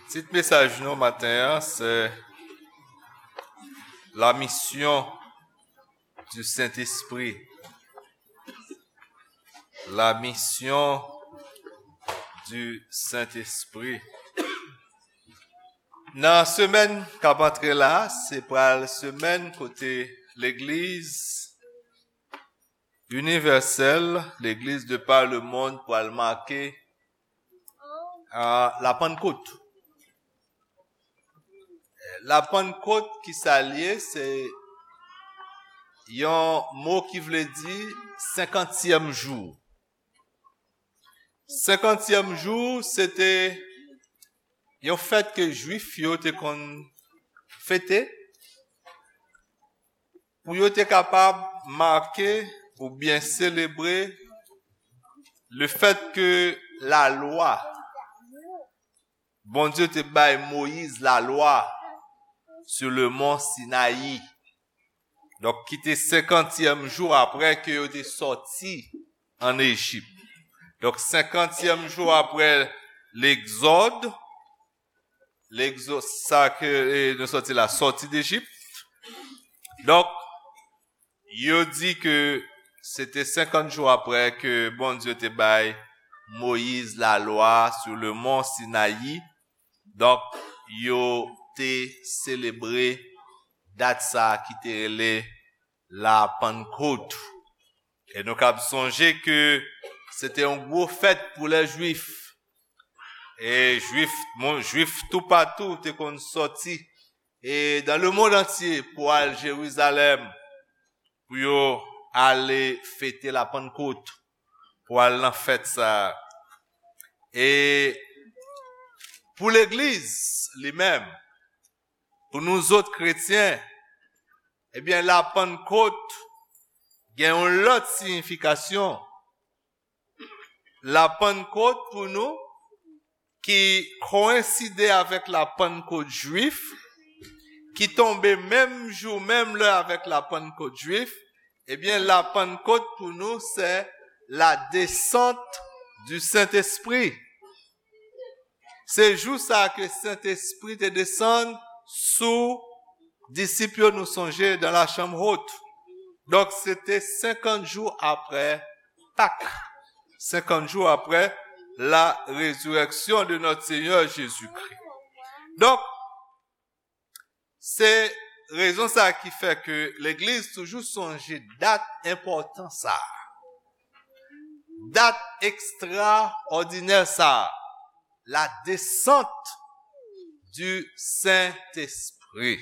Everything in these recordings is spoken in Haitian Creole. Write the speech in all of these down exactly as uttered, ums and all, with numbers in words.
Tit mesaj nou maten an, se La mission du Saint-Esprit. La mission du Saint-Esprit. Nan semèn k ap antre la, se pral semèn kote legliz inivèsèl, legliz de par le monde pral make, ah, la Pannkot. La Pannkot, ki sa l ye? Se yon mo ki vle di senkantyèm jou. Senkantyèm jou, se te yon fèt ke Jwif yo te konn fete pou yo te kapab make oubyen selebre le fèt ke lalwa, Bondye te bay Moyiz lalwa sur le mont Sinayi. Donk, ki te senkantyèm jou apre ke yo te sòti ann Ejip. Donk, senkantyèm jou apre Legzòd, Legzòd, sa ke, e, nou sòti la, sòti Dejip. Donk, yo di ke se te senkant jou apre ke Bondye te bay Moyiz lalwa sur le mont Sinayi. Donk, yo te selebre dat sa ki te rele la Pannkot. E nou kab sonje ke se te yon gwo fèt pou lè Jwif. E Jwif, moun, Jwif toupatou te konn sòti, e dans le monde entier, pou al Jerizalèm, pou yo ale fete la Pannkot, pou al nan fèt sa a. E pou legliz li menm, pou nou zòt kretyen, ebyen, la Pannkot gen yon lòt siyifikasyon. La Pannkot pou nou, ki koyenside avèk la Pannkot jwif, ki tonbe menm jou, menm lè avèk la Pannkot jwif, ebyen, la Pannkot pou nou, se la descente du Saint-Esprit. Se jou sa a ke Sentespri te desann sou disip yo, nou sonje, dans la chambre haute. Donk, se te senkant jou apre Pak. Senkant jou apre la résurrection de notre Seigneur Jésus-Christ. Donk, se rezon sa a ki fè ke legliz toujou sonje dat enpòtan sa a. Dat ekstraòdinè sa a, la descente du Saint-Esprit.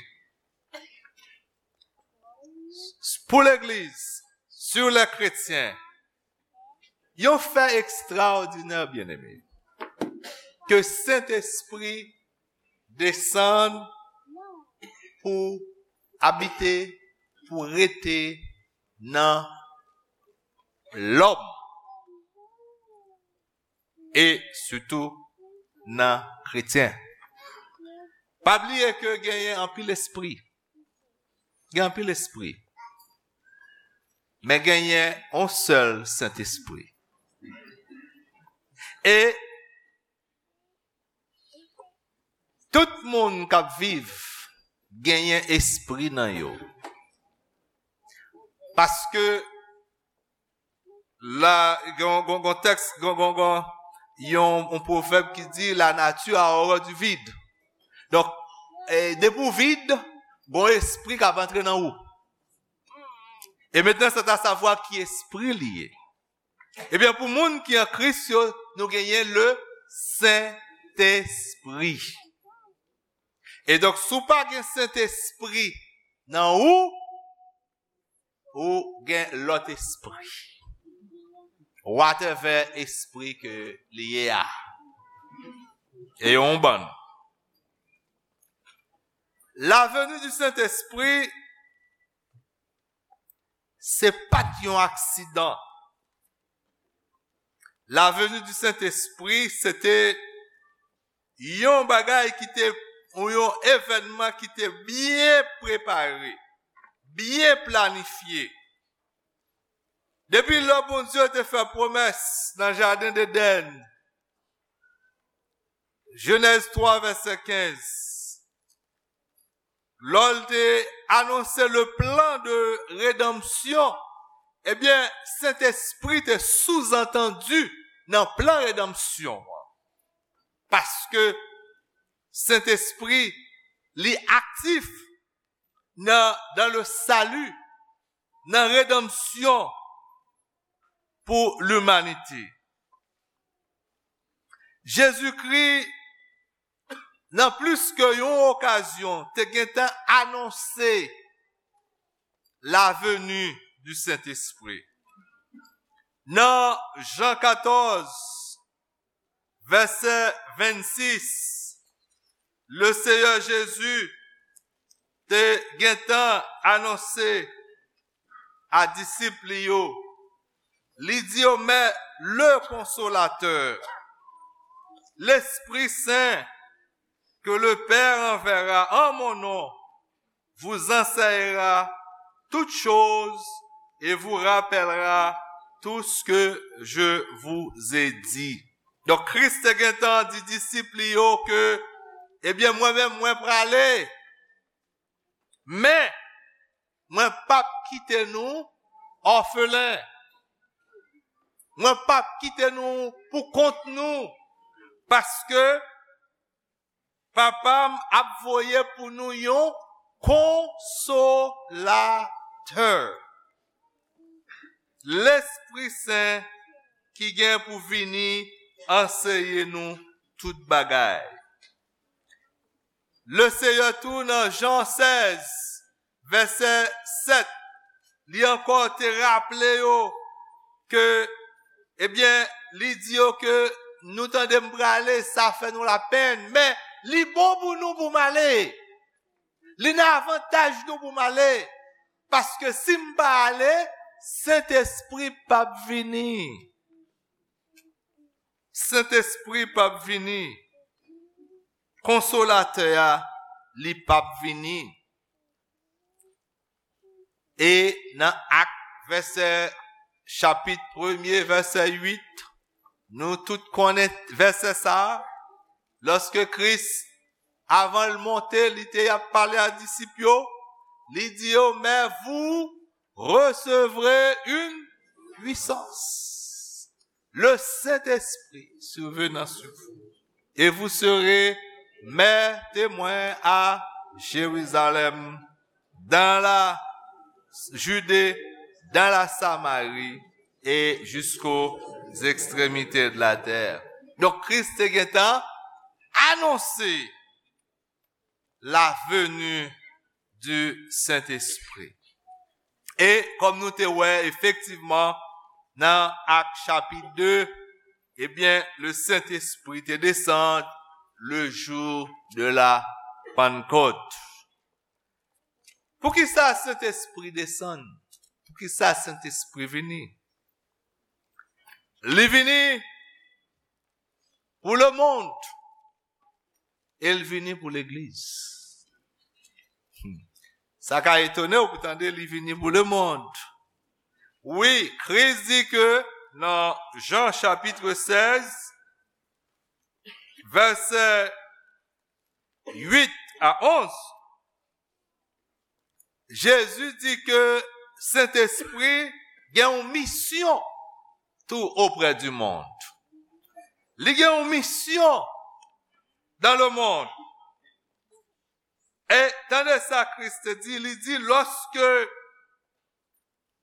Pou legliz, sur les chrétiens, yon fè ekstraòdinè, byeneme, ke Sentespri desann pou abite, pou rete nan lòm, e sitou nan kretyen. Pa bliye ke genyen anpil espri. Gen anpil espri. Men genyen yon sèl Sentespri. E tout moun k ap viv genyen espri nan yo. Paske la, gen, gen, gen tèks, gen, gen, gen yon, yon pwovèb ki di, la nature a horreur du vide. Donk, e, depi w vid, gen yon espri k ap antre nan ou. E mentnan, c'est à savoir ki espri li ye. Ebyen, pou moun ki an Kris yo, nou genyen le Sentespri. E donk, si w pa gen Sentespri nan ou, ou gen lòt espri. Whatever espri ke li ye a. E yon bann. La venue du Saint-Esprit, se pa t yon aksidan. La venue du Saint-Esprit, se te yon bagay ki te, ou yon evènman ki te byen prepare, byen planifye. Depi lè Bondye te fè pwomès nan jaden Edenn, Jenèz twa, vèsè kenz. Lè l te anonse le plan de rédemption, ebyen, Sentespri te souzantandi nan plan redanmsyon an. Paske Sentespri, li aktif nan, dans le salut, nan redanmsyon pou limanite. Jezikri, nan plis ke yon okazyon, te gentan anonse la venue du Saint-Esprit. Nan Jan katòz, vèsè vennsis, le Seyè Jezi te gentan anonse a disip li yo, li di yo, mais le Consolateur, l'Esprit Saint, que le Père enverra en mon nom, vous enseignera toutes choses et vous rappellera tout ce que je vous ai dit. Donk, Kris te gentan di disip li yo ke, ebyen, mwen menm, mwen prale, men mwen p ap kite nou òfelen. Mwen p ap kite nou pou kont nou, paske Papa m ap voye pou nou yon konsolatè, Lespri Sen ki gen pou vini anseye nou tout bagay. Le Seyè tou nan Jan sèz, vèsè sèt, li ankò te raple yo ke, ebyen, li di yo ke nou tande m prale, sa fè nou lapenn, men li bon pou nou pou m ale. Li nan avantaj nou pou m ale, paske si m pa ale, Sentespri p ap vini. Sentespri p ap vini. Konsolatè a, li p ap vini. E nan Ak, vèsè, chapit premye, vèsè uit, nou tout konnen vèsè sa a. Lòske Kris, avan l monte, li te ap pale a disip yo, li di yo, mais vous recevrez une puissance. Le Saint-Esprit survenant sur vous, et vous serez mes témoins à Jérusalem, dans la Judée, dans la Samarie et jusqu'aux extrémités de la terre. Donk, Kris te gentan anonse la venue du Saint-Esprit. E kòm nou te wè, efektivman, nan Ak chapit de, ebyen, le Saint-Esprit te desann le jour de la Pentecôte. Poukisa Sentespri desann? Poukisa Sentespri vini? Li vini pou lemonn. E l vini pou legliz. Hmm. Sa ka etone w pou tande li vini pou lemonn. Wi, Kris di ke nan Jan chapit sèz, vèsè uit a onz, Jezi di ke Sentespri gen yon misyon tou oprè di mond. Li gen yon misyon dans le monde. E tande sa Kris te di, li di, lorsque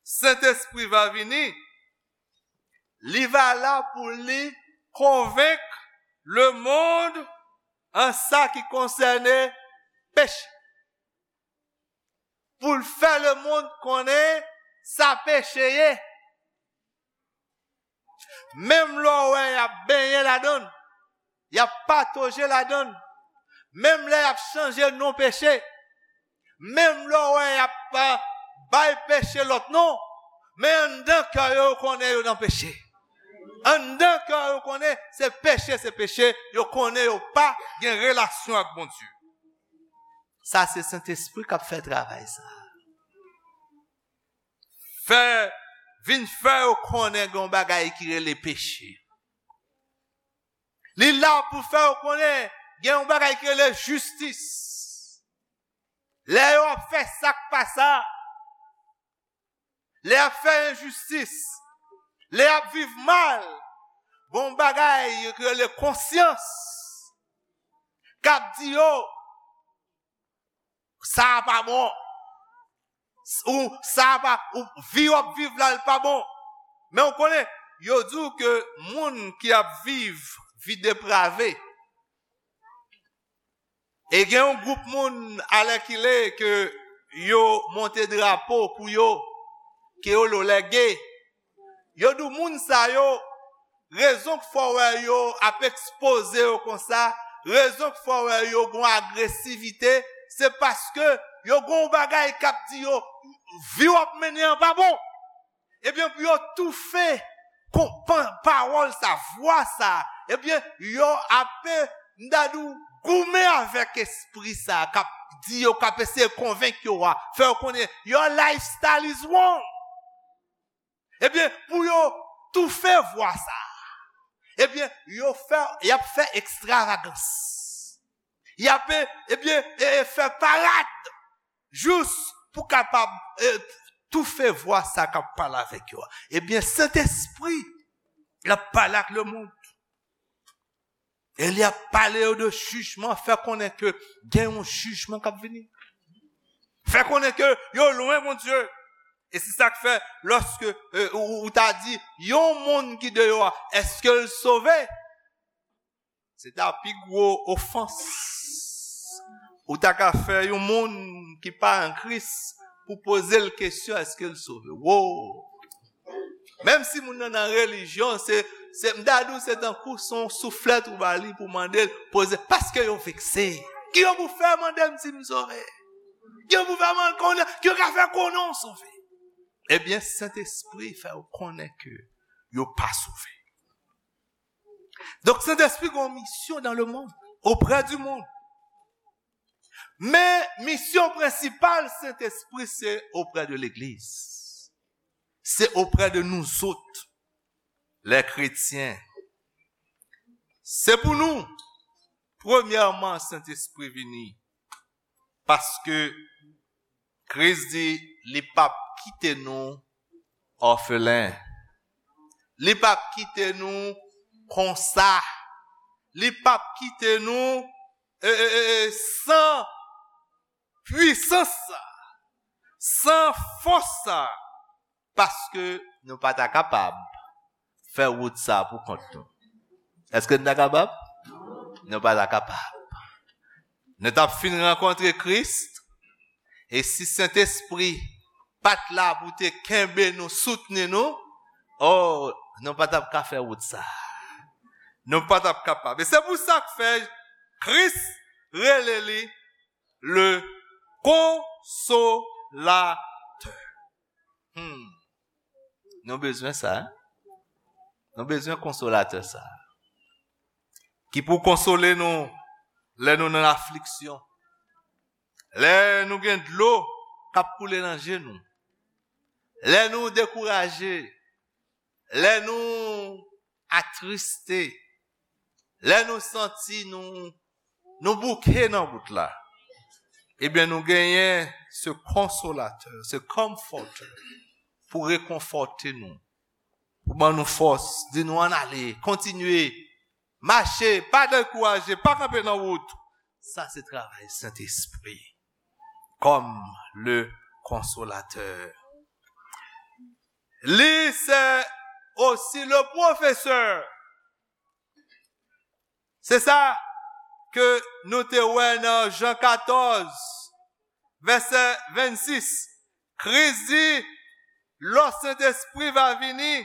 Saint-Esprit va venir, li va la pou li konvenk le monde an sa ki konsène peche. Pou l fè lemonn konnen sa peche ye. Menm lè w wè y ap benyen ladan l, y ap patoje ladan l, menm lè y ap chanje non peche, menm lè w wè y ap, a, bay peche lòt non, men anndan kè yo, yo konnen yo nan peche. Anndan kè yo konnen se peche, se peche, yo konnen yo pa gen relasyon ak Bondye. Sa se Sentespri k ap fè travay sa. Fè, vin fè yo konnen gen yon bagay ki rele peche. Li la pou fè yo konnen gen yon bagay ki rele jistis. Lè yo ap fè sa k pa sa, lè y ap fè enjistis, lè y ap viv mal, gon bagay yo rele konsyans k ap di yo, sa a pa bon. Ou sa a pa, ou vi w ap viv la, l pa bon. Men w konnen, yo di w ke moun ki ap viv vi deprave, e gen yon gwoup moun alèkile ke yo monte drapo pou yo, ke yo lo lège. Yo di w moun sa yo, rezon k fè w wè yo ap ekspoze yo konsa, rezon k fè w wè yo gon agresivite, se paske yo gon bagay k ap di yo, vi w ap mennen an pa bon. Ebyen, pou yo toufe kon, pa, pawòl sa, vwa sa, ebyen, yo ape, m ta di w, goumen avèk espri sa k ap di yo, k ap eseye konvenk yo a, fè yo konnen your lifestyle is wrong. Ebyen, pou yo toufe vwa sa, ebyen, yo fè, y ap fè ekstravagans. Y ap, ebyen, e, e fè parad. Jis pou kapab, e, toufe vwa sa k ap pale avèk yo a. Ebyen, Sentespri, l ap pale ak lemonn. E li ap pale yo de jijman, fè konnen ke gen yon jijman k ap vini. Fè konnen ke yo lwen Bondye. E se sa k fè, lòske, e, ou, ou ta di, yon moun ki deyò a, èske l sove? Se ta pi gwo ofans ou ta ka fè yon moun ki pa an Kris pou poze l kesyon, èske l sove? Wo! Menm si moun nan nan relijyon, se, se, m ta di w, se tankou se yon souflèt ou ba li pou mande l, poze, paske yo vekse. Ki yo pou fè mande m si m sove? Ki yo pou fè mande konnen, ki yo ka fè konnen w sove? Ebyen, Sentespri fè yo konnen ke yo pa sove. Donk, Sentespri gen yon misyon dans le monde, auprès du monde. Men misyon prensipal Sentespri se auprès de legliz. Se auprès de nous autres, les chrétiens. Se pou nou, premyèman, Sentespri vini. Paske Kris di li p ap kite nou òfelen. Li p ap kite nou konsa. Li p ap kite nou, e, e, e, e, san pwisans sa, san fòs sa, paske nou pa ta kapab fè wout sa pou kont nou. Èske n ta kapab? Nou pa ta kapab. Nou t ap fin rankontre Kris, e si Sentespri pa t la pou te kenbe nou, soutni nou, o, nou pa t ap ka fè wout sa. Nou pa t ap kapab. E se pou sa k fè Kris rele li le Konsolatè. Hmm. Nou bezwen sa, hein? Nou bezwen Konsolatè sa. Ki pou konsole nou lè nou nan afliksyon. Lè nou gen dlo k ap koule nan je nou. Lè nou dekouraje. Lè nou atriste. Lè nou santi nou, nou bouke nan wout la. Ebyen, nou genyen se konsolatè, se comforter, pou rekonfòte nou, pou ban nou fòs, di nou ann ale, kontinye, mache, pa dekouraje, pa kanpe nan wout. Sa se travay Sentespri, comme le consolateur. Li se osi le professeur. Se sa ke nou te wè nan Jan katòz, vèsè vennsis. Kris di, lò Sentespri va vini,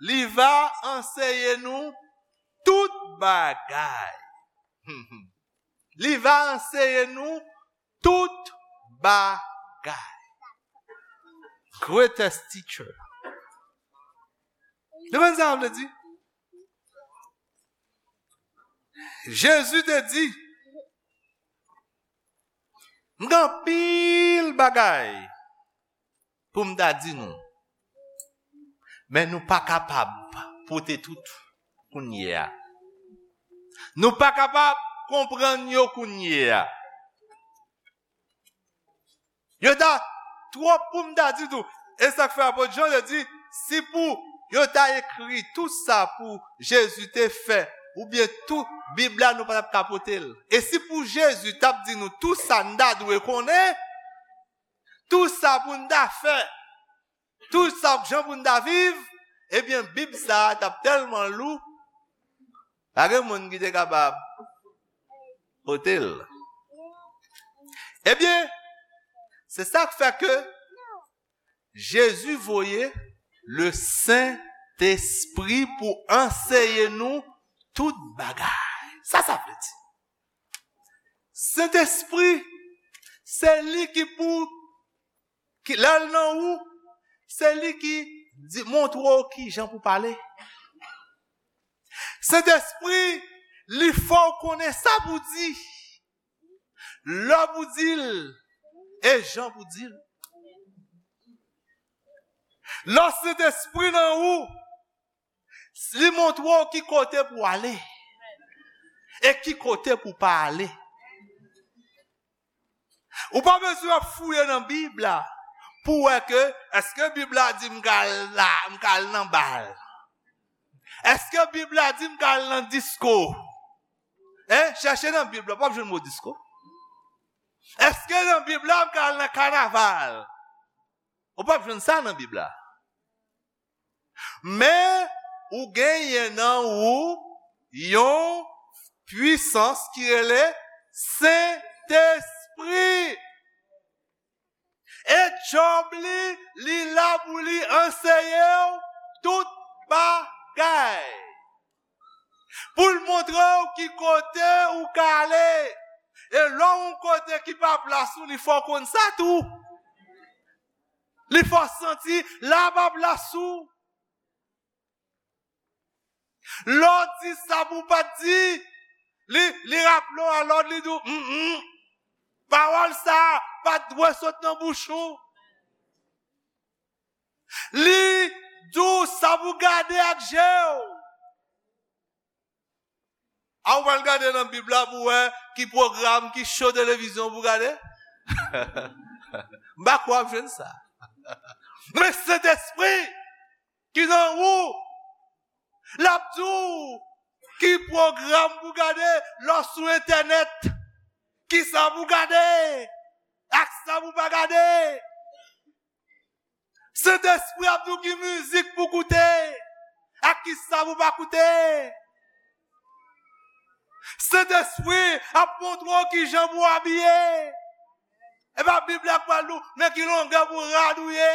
li va anseye nou tout bagay. Li va anseye nou tout bagay. Greatest teacher. Ou konprann sa m vle di? Jezi te di, m gen anpil bagay pou m ta di nou, men nou pa kapab pote tout kounye a. Nou pa kapab konprann yo kounye a. Yo ta twòp pou m ta di tou. E sa k fè apot Jan te di, si pou yo ta ekri tout sa pou Jezi te fè, oubyen tout Bib la, nou pa t ap ka pote l. E si pou Jezi t ap di nou tout sa n ta dwe konnen, tout sa pou n ta fè, tout sa jan pou n ta viv, ebyen, Bib sa a t ap tèlman lou, pa gen moun ki te kapab pote l. Ebyen, se sa k fè ke Jezi voye le Sentespri pou anseye nou tout bagay. Sa sa vle di? Sentespri, se li ki pou, ki, lè l nan ou, se li ki di, montre w ki jan pou pale. Sentespri, li fè w konnen sa pou di, lè pou di l, e jan pou di l. Lè Sentespri nan ou, li montre w ki kote pou ale e ki kote pou pa ale. Ou pa bezwen ap fouye nan Bib la pou wè ke èske Bib la di m ka al la, m ka al nan bal? Èske Bib la di m ka al nan disko? Hein? Chèche nan Bib la, w p ap jwenn mo disko. Èske nan Bib la m ka al nan kanaval? Ou p ap jwenn sa nan Bib la. Men ou genyen nan ou yon pwisans ki rele Sentespri. E djòb li, li la pou li anseye w tout bagay. Pou l montre w ki kote ou ka ale. E lè w yon kote ki pa plas ou, li fè w konn sa tou. Li fè w santi la pa plas ou. Lè w di sa pou w pa t di, li, li raple w alòd, li di w, mm, mm, pawòl sa a pa t dwe sot nan bouch ou. Li di w sa pou w gade ak je w. A, ou pral gade nan Bib la pou w wè ki pwogram, ki show televizyon pou w gade? M pa kwè w ap jwenn sa. Men Sentespri ki nan ou, l ap di w ki pwogram pou w gade lè w sou entènèt, ki sa pou w gade, ak sa pou w pa gade. Sentespri ap di w ki mizik pou koute, ak ki sa pou pa koute. Sentespri ap montre w ki jan pou w abiye. E pa Bib la k pral di w nan ki longè pou rad ou ye.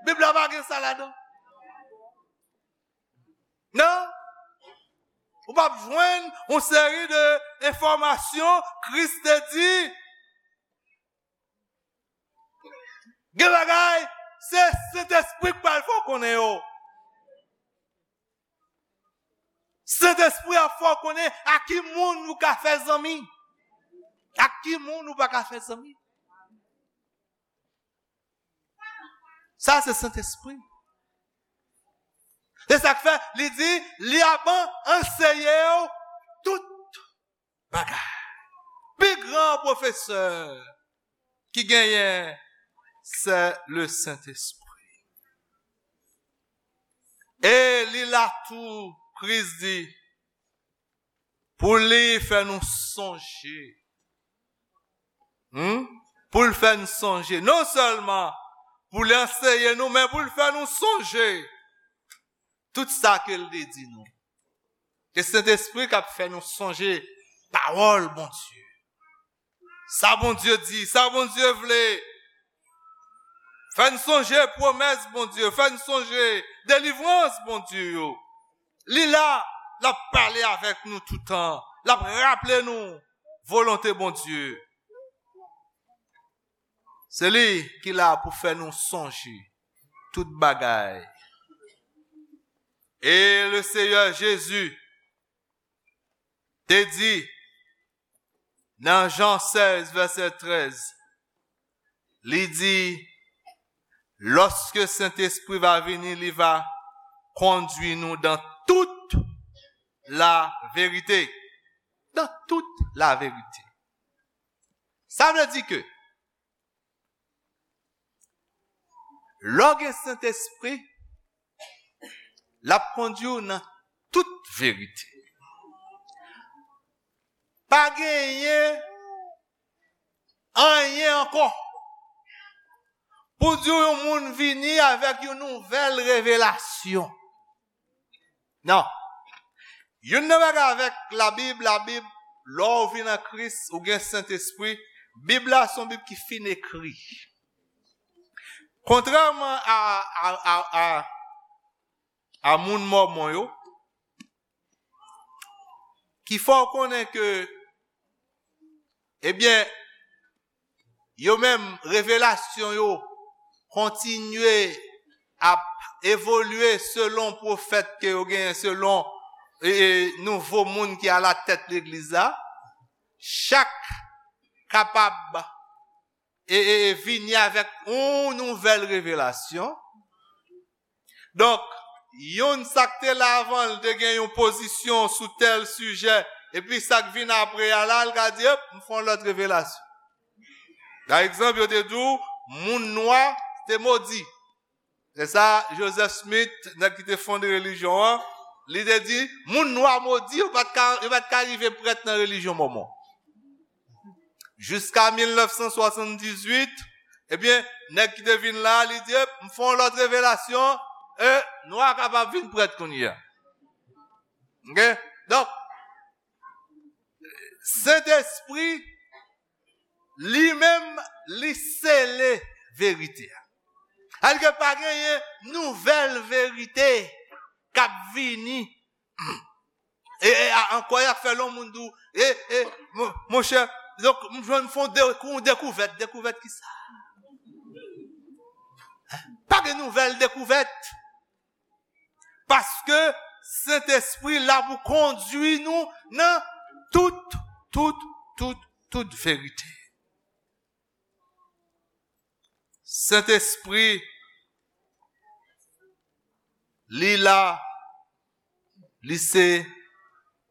Bib la pa gen sa ladan. Non. Ou p ap jwenn yon seri de enfòmasyon Kris te di. Gen bagay, se Sentespri k pral fè w konnen yo. Sentespri ap fè w konnen ak ki moun ou ka fè zanmi, ak ki moun ou pa ka fè zanmi. Sa se Sentespri. Se sa k fè li di, li ap anseye w tout bagay. Pi gran pwofesè ki genyen, se le Sentespri. E li la tou, Kris di, pou li fè nou sonje. Hmm? Pou l fè nou sonje. Non sèlman pou li anseye nou, men pou l fè nou sonje tout sa ke l te di nou. E Sentespri k ap fè nou sonje pawòl Bondye. Sa Bondye di, sa Bondye vle. Fè n sonje pwomès Bondye, fè n sonje delivrans Bondye yo. Li la, l ap pale avèk nou toutan, l ap raple nou volonte Bondye. Se li ki la pou fè nou sonje tout bagay. E le Seyè Jezi te di nan Jan sèz, vèsè trèz, li di, lòske Sentespri va vini, li va kondui nou dan tout la verite. dans toute la vérité. Sa vle di ke lè w gen Sentespri, l ap kondui w nan tout verite. Pa genyen anyen ankò pou di w yon moun vini avèk yon nouvèl revelasyon. Non. Youn nan bagay avèk Labib, Labib, lè w vin an Kris, ou gen Sentespri, Bib la se yon Bib ki fin ekri. Kontrèman a, a, a, a, a moun Mòmon yo, ki fè w konnen ke, ebyen, yo menm, revelasyon yo kontinye ap evolye selon pwofèt ke yo genyen, selon, e, e, nouvo moun ki alatèt legliz la. Chak kapab e, e, e vini avèk yon nouvèl revelasyon. Donk, youn sa k te la avan l te gen yon pozisyon sou tèl sijè, epi sa k vin apre a la, l ka di, "Ep, m fè yon lòt revelasyon." Pa egzanp, yo te di w, moun nwa te modi. Se sa, Joseph Smith, nèg ki te fonde relijyon an, li te di, moun nwa modi, yo pa t ka, yo pa t ka rive prèt nan relijyon Mòmon. Jiska mil nèf san swasanndizuit, ebyen, nèg ki te vin la, li di, "M fè yon lòt revelasyon, e nwa kapab vin prèt kounye a." Oke? Donk, Sentespri, li menm, li sele verite a. Sa vle di ke pa genyen nouvèl verite k ap vini. E, e a, ankò, y ap fè lè yon moun di w, e, e, mon, monchè, donk, m jwenn fè yon de-, yon dekouvèt. Dekouvèt ki sa? Pa gen nouvèl dekouvèt. Paske Sentespri la pou kondui nou nan tout, tout, tout, tout verite. Sentespri, li la, li se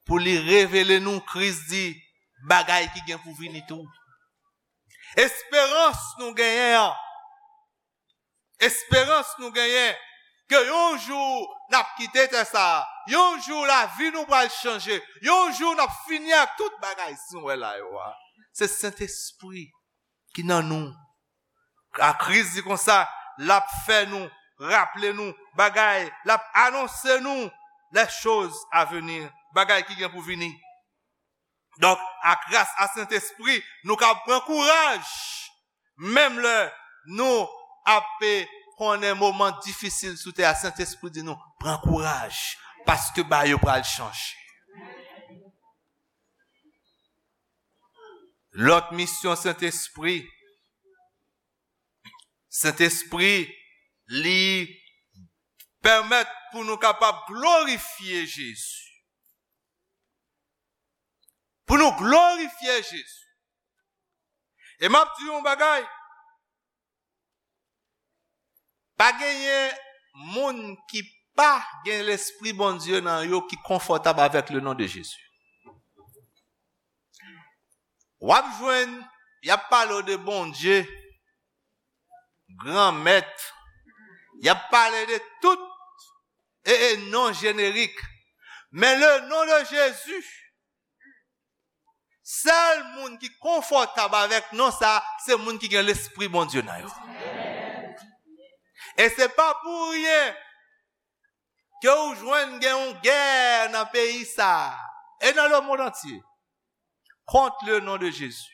pou li revele nou, Kris di, bagay ki gen pou vini tou. Esperans nou genyen an, esperans nou genyen, ke yon jou n ap kite tè sa a, yon jou lavi nou pral chanje, yon jou n ap fini ak tout bagay si nou wè la yo a. Se Sentespri ki nan nou. A Kris di konsa, l ap fè nou raple nou bagay, l ap anonse nou les choses à venir, bagay ki gen pou vini. Donk, a gras a Sentespri, nou ka pran kouraj. Menm lè nou ap konnen moman difisil sou tè a, Sentespri di nou, pran kouraj, paske bagay yo pral chanje. Lòt misyon Sentespri, Sentespri, li pèmèt pou nou kapab glorifye Jezi. Pou nou glorifye Jezi. E m ap di yon bagay, pa genyen moun ki pa gen Lespri Bondye nan yo ki konfòtab avèk le non de Jezi. W ap jwenn, y ap pale w de Bondye, Granmèt, y ap pale de tout e, e non jenerik. Men le non de Jezi, sèl moun ki konfòtab avèk non sa, se moun ki gen Lespri Bondye nan yo. E se pa pou ryen ke ou jwenn gen yon gè nan peyi sa a, e nan le monde entier, contre le nom de Jésus.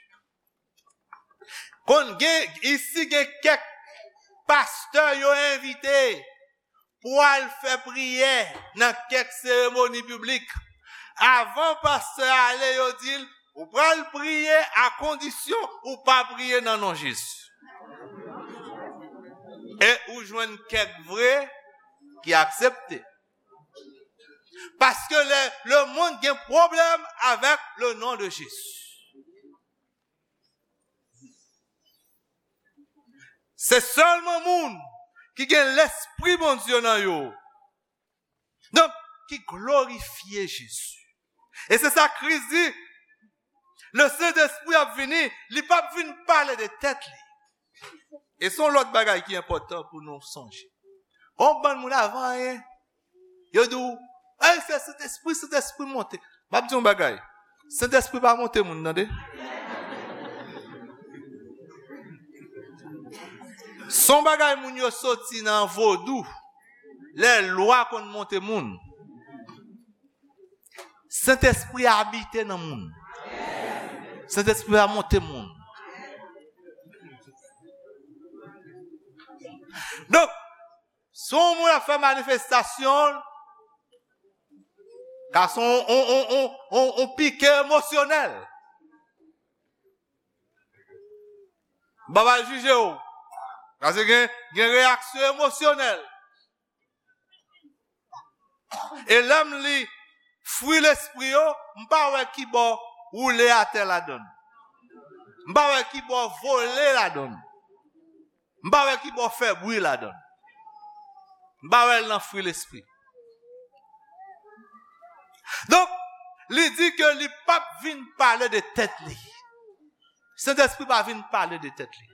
Konn gen, isi gen kèk pastè yo envite pou al fè priyè nan kèk seremoni piblik. Avan pastè a ale, yo di l, ou pral priye a kondisyon ou pa priye nan non Jezi. E ou jwenn kèk vre ki aksepte. Paske le, le monde gen pwoblèm avèk le non de Jezi. Se sèlman moun ki gen Lespri Bondye nan yo. Donk, ki glorifye Jezi. E se sa Kris di, Le Sentespri ap vini, li p ap vin pale de tèt li. E se yon lòt bagay ki enpòtan pou nou sonje. Gon bann moun avan anyen, yo di w, "Ey, se Sentespri, Sentespri monte." M ap di yon bagay. Sentespri pa monte moun, tande. Se yon bagay moun yo soti nan vodou. Lè lwa konn monte moun. Sentespri abite nan moun. Sentespri pa monte moun. Donk, si yon moun ap fè manifestasyon, ka se yon, yon, yon, yon, yon, yon pike emosyonèl. M pa pral jije w. Paske gen, gen reyaksyon emosyonèl. E lè m li fwi lespri yo, m pa wè ki bò woule atè ladann. M pa wè ki bò vole ladann. M pa wè ki bò fè bri ladann. M pa wè l nan fwi lespri. Donk, li di ke li p ap vin pale de tèt li. Sentespri pa vin pale de tèt li.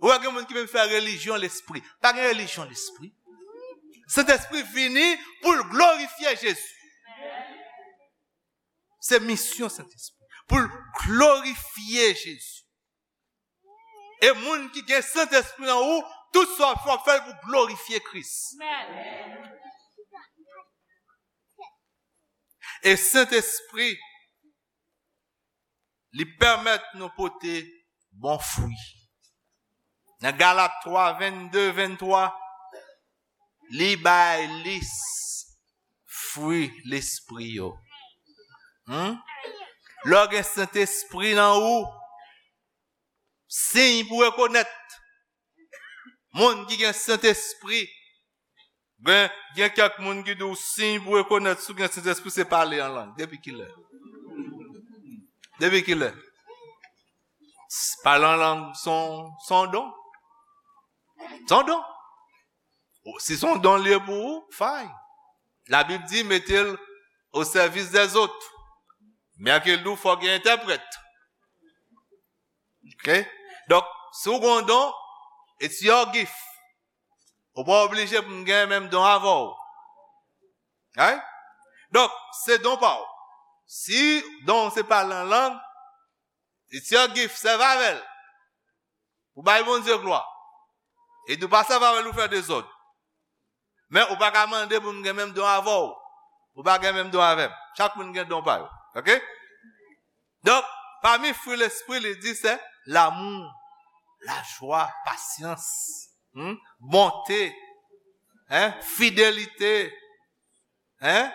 Ou wè gen moun ki menm fè relijyon lespri. Pa gen relijyon lespri. Sentespri vini pou l glorifye Jezi. Se misyon Sentespri. Pou l glorifye Jezi. E moun ki gen Sentespri nan ou, tout sa w ap fè, w ap fè l pou glorifye Kris. E Sentespri, li pèmèt nou pote bon fwi. Nan Galat twa, vennde, venntwa, li bay lis fwi lespri yo. Hmm? Lè w gen Sentespri nan ou, siy pou rekonèt moun ki gen Sentespri. Gen, gen kèk moun ki di w siy pou rekonèt si w gen Sentespri se pale an lang. Depi kilè? Depi kilè? Pale an lang se yon, se yon don. Se yon don. Si se yon don li ye pou ou, fine. Labib di, mete l o sèvis dèzòt. Men ke l di w fò gen entèprèt. Ok? Donk, si w gen yon don, it's your gift. Ou pa oblije pou m gen menm don avè w. Right? Donk, se don pa w. Si don w se pale an lang, it's your gift, sèvi avè l. Ou bay Bondye glwa. E di w pa sèvi avè l, ou fè dezòd. Men ou pa ka mande pou m gen menm don avè w. Ou pa gen menm don avè m. Chak moun gen don pa yo. Ok? Donk, pami fwi lespri, li di se lanmou, lajwa, pasyans, hmm, bonte, hein, fidelite, hein,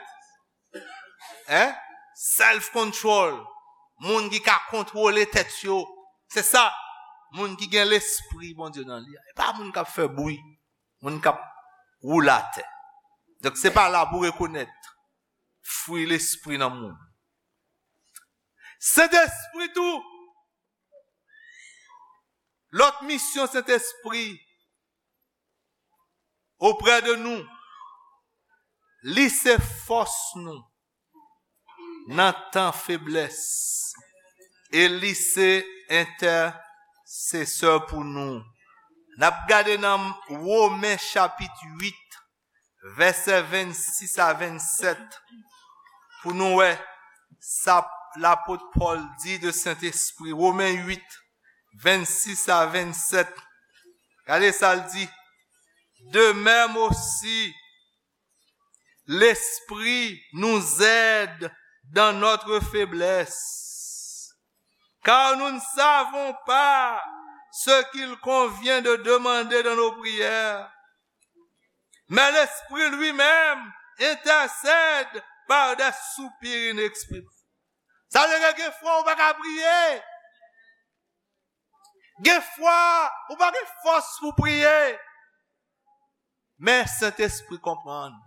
hein, self control, moun ki ka kontwole tèt yo. Se sa, moun ki gen lespri Bondye nan li a. E pa moun k ap fè bri, moun k ap woule atè. Donk, se pa la pou rekonèt fwi lespri nan moun. Sentespri tou, lòt misyon Sentespri oprè de nou, li se fòs nou nan tan feblès, e li se entèsesè pou nou. N ap gade nan Women chapit uit, vèsè vennsis a vennsèt, pou nou wè sa lapot Pòl di de Sentespri. Women uit, vennsis a vennsèt. Gade sa l di. De même aussi, l'Esprit nous aide dans notre faiblesse, car nous ne savons pas ce qu'il convient de demander dans nos prières. Mais l'Esprit lui-même intercède par des soupirs inexprimables. Sa vle di gen fwa ou pa ka priye. Gen fwa ou pa gen fòs pou priye. Men Sentespri konprann.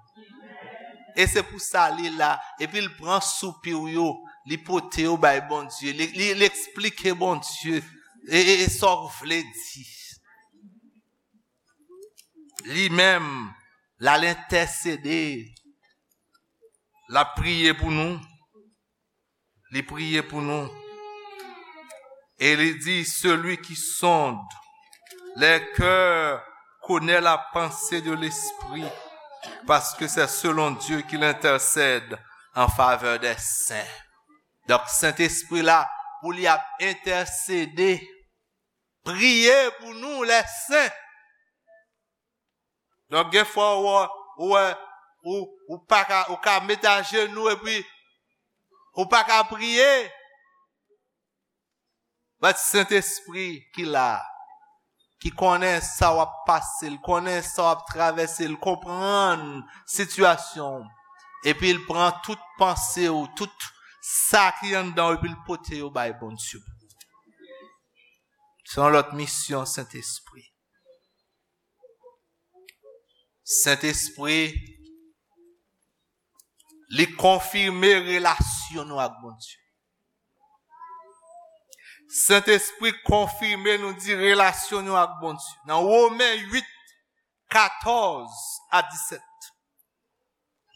E se pou sa li la. Epi l pran soupi w yo, li pote yo bay Bondye. Li, li, li eksplike Bondye. E, e, e sa w vle di. Li menm, l al entèsede. L ap priye pou nou. Li priye pou nou. E li di, celui qui sonde les cœurs connaît la pensée de l'esprit, parce que c'est selon Dieu qu'il intercède en faveur des saints. Donk, Sentespri la, pou li ap entèsede, priye pou nou, les saints. Donk, gen fwa ou, ou, ou, ou pa ka, ou ka met ajenou epi ou pa ka priye. But Sentespri ki la, ki konnen sa w ap pase, l konnen sa w ap travèse, l konprann sitiyasyon w, epi l pran tout panse w, tout sa ki anndan w, epi l pote yo bay Bondye. Se yon lòt misyon Sentespri. Sentespri, li konfime relasyon nou ak Bondye. Sentespri konfime, nou di, relasyon nou ak Bondye. Nan Women uit, katòz a disèt.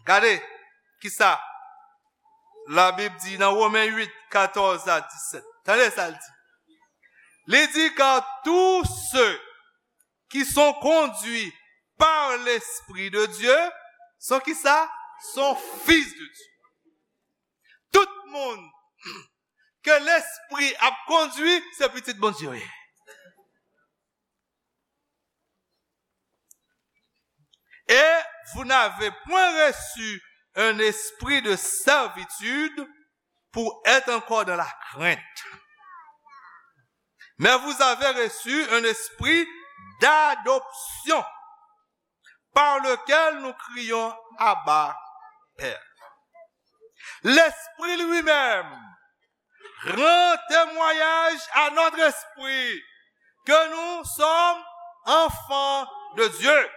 Gade kisa Labib di nan Women uit, katòz a disèt. Tande sa l di. Li di, car tous ceux qui sont conduits par l'Esprit de Dieu sont kisa? Sont fils de Dieu. Tout moun ke Lespri ap kondui, se pitit Bondye yo ye. Et vous n'avez point reçu un esprit de servitude pour être encore dans la crainte. Mais vous avez reçu un esprit d'adoption par lequel nous crions, Abba, Père. L'Esprit lui-même rend témoignage à notre esprit que nous sommes enfants de Dieu.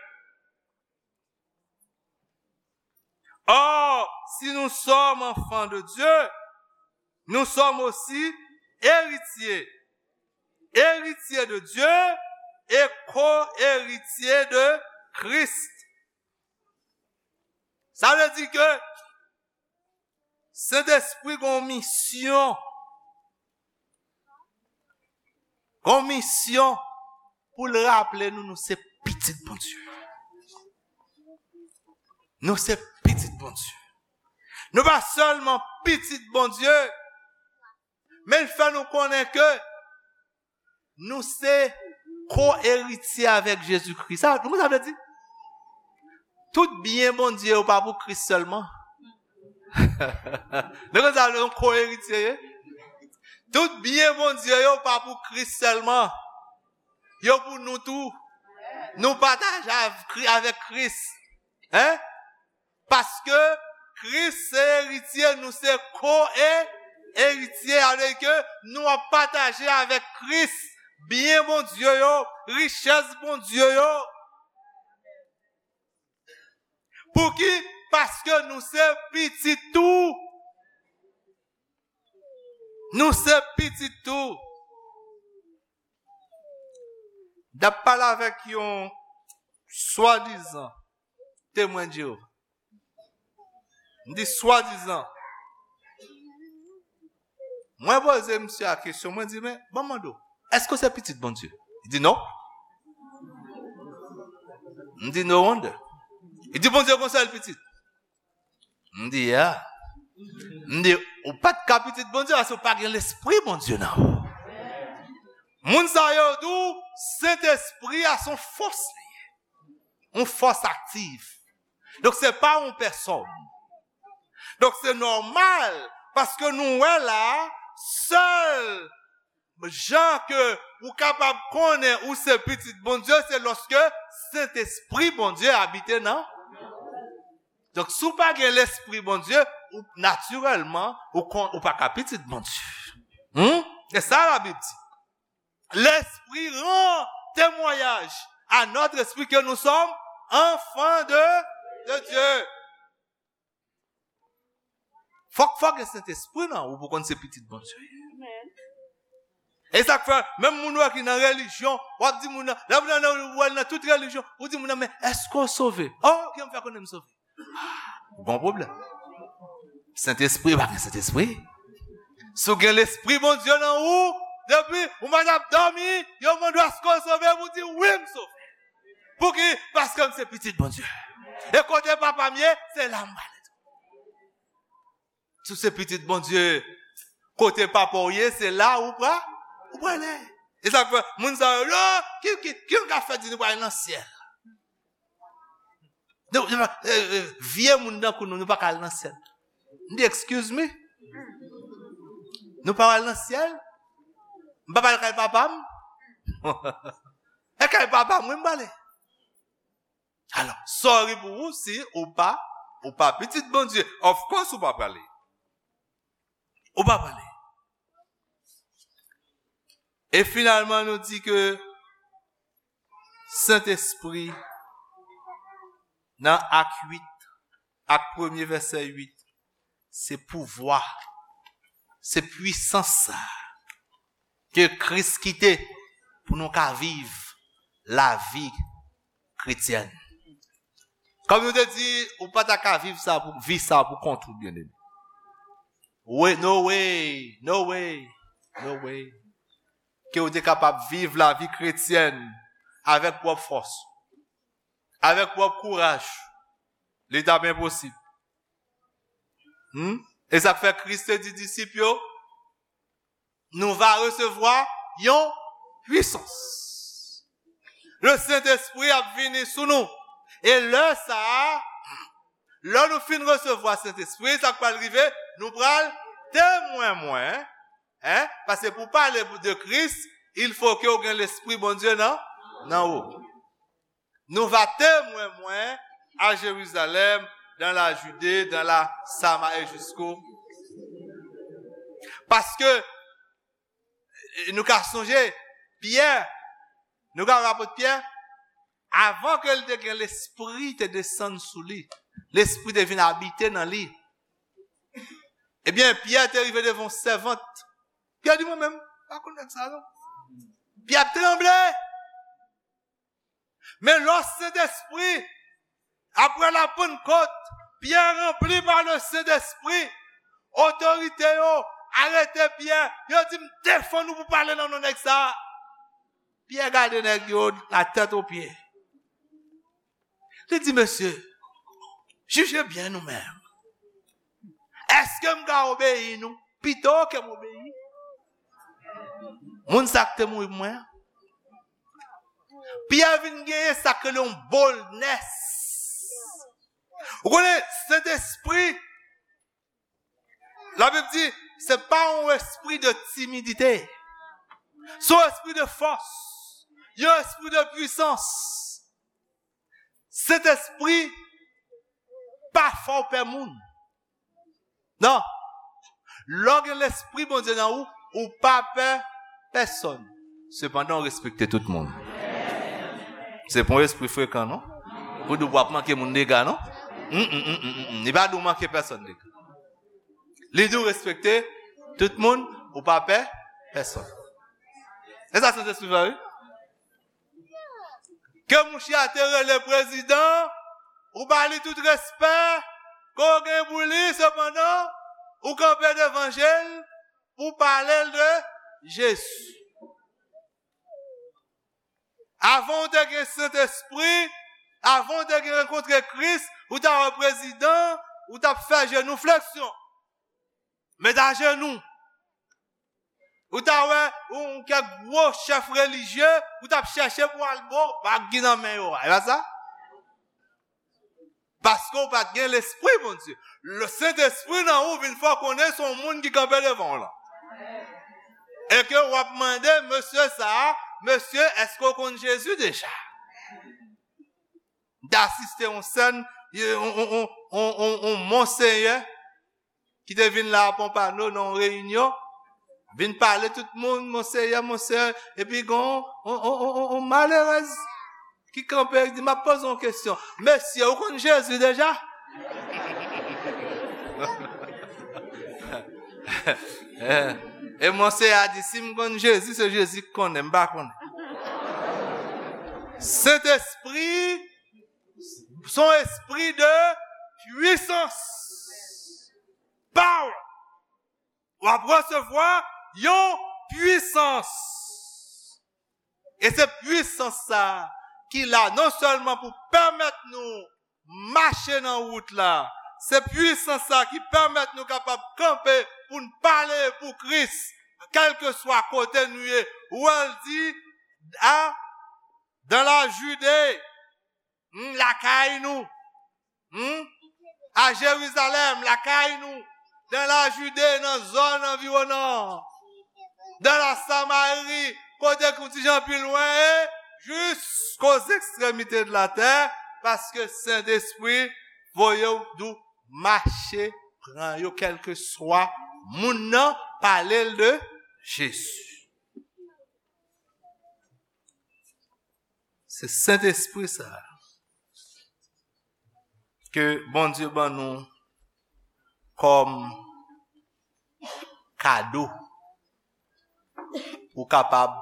Or, si nous sommes enfants de Dieu, nous sommes aussi héritiers, héritiers de Dieu et co-héritiers de Christ. Sa vle di ke Sentespri gon misyon. Gon misyon pou l raple nou, nou se pitit Bondye. Nou se pitit Bondye. Nou pa sèlman pitit Bondye, men l fè nou konnen ke nou se ko-eritye avèk Jezikri. Sa, nou konn sa vle di? Tout byen Bondye yo pa pou Kris sèlman. Nou konn sa vle di, yon ko-eritye ye? Tout byen Bondye yo pa pou Kris sèlman. Yo pou nou tou. Nou pataje avèk Kris. Hein? Paske Kris se eritye, nou se ko-eritye, sa vle di ke nou ap pataje avèk Kris byen Bondye yo, richès Bondye yo. Pouki? Paske nou se pitit tou. Nou se pitit tou. M t ap pale avèk yon swadizan Temwen de Jewova. M di swadizan. Mwen poze misye a kesyon, mwen di, men, ban m mande w, èske w se pitit Bondye? Li di, non. M di, no wonder. Li di, Bondye gon sèl pitit. M di, yeah. M di, ou pa t ka pitit Bondye, paske ou pa gen Lespri Bondye nan ou. Moun sa yo di w, Sentespri a se yon fòs li ye. Yon fòs aktif. Donk, se pa yon pèsòn. Donk, se nòmal, paske nou wè la, sèl jan ke ou kapab konnen ou se pitit Bondye, se lòske Sentespri Bondye abite nan. Donk, si w pa gen Lespri Bondye, ou, natirèlman, ou kon, ou pa ka pitit Bondye. Hmm? Se sa Labib di. L'Esprit rend témoignage à notre esprit que nous sommes enfants de, de Dieu. Fòk, fòk gen Sentespri nan ou pou konn se pitit Bondye. E sa k fè, menm moun ou wè ki nan relijyon, w ap di moun nan, lè moun nan, ou wè l nan tout relijyon, ou di moun nan, men èske w sove? Oh, ki jan m fè konnen m sove? Gon pwoblèm. Sentespri, pa gen Sentespri. Si w gen Lespri Bondye nan ou, depi ou pa t ap dòmi, yo mande w èske w sove, pou w di, "Wi, m sove." Pouki? Paske m se pitit Bondye. E kote papa m ye, se la m prale. Si w se pitit Bondye, kote papa w ye, se la ou pra, ou prale. E sa k fè, moun sa yo, yo, ki, ki, ki nou ka fè di nou prale nan syèl? Nou, nou, eh, eh, vye moun tankou nou, nou pa ka al nan syèl. M di, "Excuse me? Nou pa al nan syèl? M pa al kay papa m?" E kay papa m, wi, m prale. Alò, sorry pou ou si ou pa, ou pa pitit Bondye. Of course, ou pa prale. Ou pa prale. E finalman, nou di ke Sentespri, nan Ak uit, Ak premye vèsè uit, se pouvwa, se pwisans sa ke Kris kite pou nou ka viv lavi kretyèn. Kòm nou te di, ou pa ta ka viv sa pou, vi sa pou kont ou, byeneme. We, no way, no way, no way. Ke ou te kapab viv lavi kretyèn avèk pwòp fòs, avèk pwòp kouraj. Li t ap enposib. Hmm? E sa k fè Kris te di disip yo, nou va resevwa yon pwisans. Le Sentespri ap vini sou nou. E lè sa a, lè nou fin resevwa Sentespri, sa k pral rive, nou pral temwen mwen. Hein? Paske pou pale de Kris, il faut que w gen Lespri Bondye nan, nan ou. Nou va temwen mwen à Jérusalem, dans la Judée, dans la Samarie, jusqu'au. Paske, eh, nou ka sonje, Pyè, nou ka wè apot Pyè, avan ke l te gen Lespri te desann sou li, Lespri te vin abite nan li. Ebyen, Pyè te rive devan yon sèvant. Pyè di, "Mwen menm, pa konn nèg sa non." Pyè ap tranble. Men lò Sentespri, apre la Pannkòt, Pyè ranpli pa le Sentespri, otorite yo arete Pyè, yo di, "M defann ou pou pale nan non nèg sa a." Pyè gade nèg yo, la tèt o pye. Li di, "Mesye, jije byen nou menm. Èske m ka obeyi nou pito ke m obeyi moun sa k te mouri pou mwen an?" Pyè vin genyen sa k rele yon boldness. Ou konnen, Sentespri, Labib di, se pa yon espri de timidite. Se yon espri de fòs. Yon espri de pwisans. Sentespri pa fè w pè moun. Non. Lè w gen Lespri Bondye nan ou, ou pa pè pèsonn. Sepandan, w respekte tout moun. Se pa yon espri frekan, non. Pou di w ap manke moun dega, non. Mm, mm, mm, mm, mm, mm. Li pa di w manke pèsonn dega. Li di w respekte tout moun, ou pa pè pèsonn. E sa Sentespri fè, wi. Ke mouche a te rele prezidan, ou ba li tout respè ke w gen pou li, sepandan, ou kanpe devan je l pou w pale l de Jezi. Avan w te gen Sentespri, avan w te gen rankontre Kris, ou ta wè prezidan, ou t ap fè jenou fleksyon. Met ajenou. Ou ta wè yon kèk gwo chèf relijye, ou t ap chèche pou al bo bag ki nan men yo a. E pa sa? Paske w pa t gen Lespri Bondye. Le Sentespri nan ou vin fè w konnen se yon moun ki kanpe devan w lan. E ke w ap mande mesye sa a, "Mesye, èske w konn Jezi deja?" M te asiste yon sèn, yon, yon, yon, yon, yon, yon monseyè ki te vin la a Pompano nan yon reyinyon, vin pale tout moun, "Monseyè, monseyè," epi gen yon, yon, yon, yon, yon, yon malerèz ki kanpe, li di, "M ap poze yon kesyon. Mesye, ou konn Jezi deja?" E monseyè a di, "Si m konn Jezi, se Jezi k konnen, m pa konnen." Sentespri, se yon espri de pwisans. Power. w ap resevwa yon pwisans. E se pwisans sa a ki la non sèlman pou pèmèt nou mache nan wout la, se pwisans sa a ki pèmèt nou kapab kanpe pou n pale pou Kris, kèlkeswa kote nou ye. Ou wè l di, a, dans la Judée, hmm, lakay nou, hmm, à Jérusalem, lakay nou, dans la Judée, nan zòn anviwonan, dans la Samarie, kote k yon ti jan pi lwen, e jusqu'aux extrémités de la terre, paske Sentespri voye w dou mache pran yo, kèlkeswa moun nan, pale l de Jezi. Se Sentespri sa a ke Bondye ban nou kòm kado pou kapab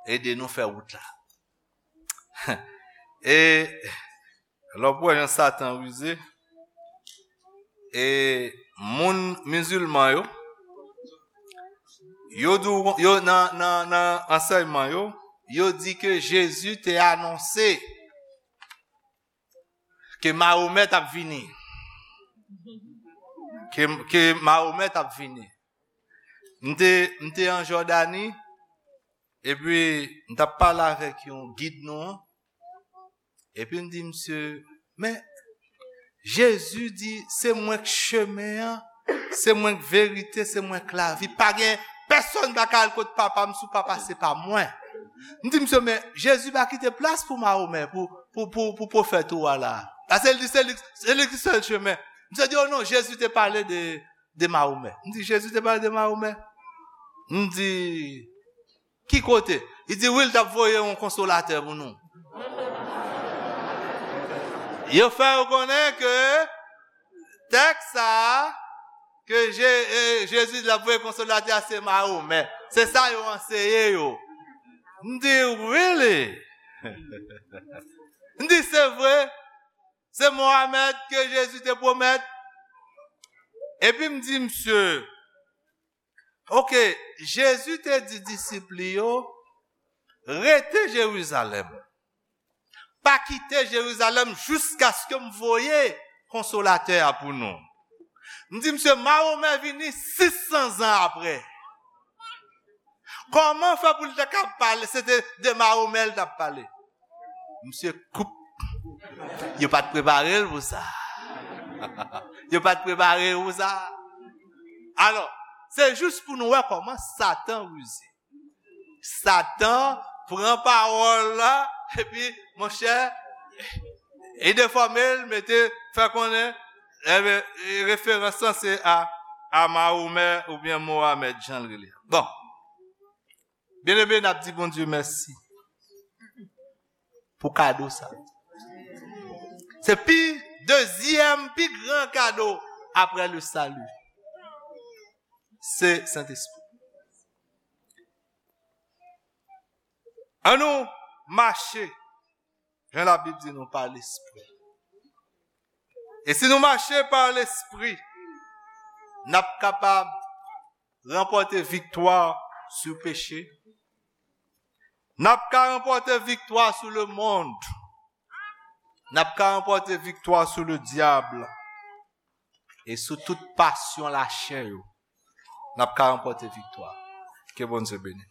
ede nou fè wout la. E lè w wè jan Satan rize, e moun mizilman yo, yo di w, yo nan, nan, nan ansèyman yo, yo di ke Jezi te anonse ke Mahomè t ap vini. Ke, ke Mahomè t ap vini. M te, m te an Jòdani, epi m t ap pale avèk yon gid nou an, epi m di misye, men, Jezi di, se mwen k chemen an, se mwen k verite, se mwen k lavi. Pa gen pèsonn pa ka al kot Papa m si w pa pase pa mwen. M di misye, men Jezi pa kite plas pou Mahomè, pou, pou, pou, pou pwofèt ou a la. Paske li di, se li, se li ki sèl chemen. Misye di, o non, Jezi te pale de, de Mahomè. M di, Jezi te pale de Mahomè? M di, ki kote? Li di, wi, l t ap voye yon konsolatè pou nou. Yo fè yo konnen ke tèks sa a, ke Je-, e, Jezi di l ap voye konsolatè a, se Mahomè. Se sa yo anseye yo. M di, really? M di, se vre. Se Mohamed ke Jezi te pwomèt. Epi m di misye, ok, Jezi te di disip li yo, rete Jerizalèm. Pa kite Jerizalèm jiskaske m voye konsolatè a pou nou. M di misye, Mahomè vini sis san zan apre. Kòman fè pou l te ka pale, se te de Mahomè l t ap pale? Misye koup. Yo pa t prepare l pou sa. Yo pa t prepare l pou sa. Alò, se jis pou nou wè kòman Satan rize. Satan pran pawòl la, epi, monchè, e defòme l, mete, fè konnen, enben, referans lan se a, a Mahomè oubyen Mohamed, jan l rele. Bon. Byeneme, n ap di Bondye mèsi pou kado sa. Se pi, dezyèm pi gran kado apre le salut. Se Sentespri. Ann nou mache, jan Labib di nou, pa Lespri. E si nou mache pa Lespri, n ap kapab ranpòte viktwa sou peche. N ap ka ranpòte viktwa sou lemonn. N ap ka ranpòte viktwa sou ledyab e sou tout pasyon lachè yo. N ap ka ranpòte viktwa. Ke Bondye beni.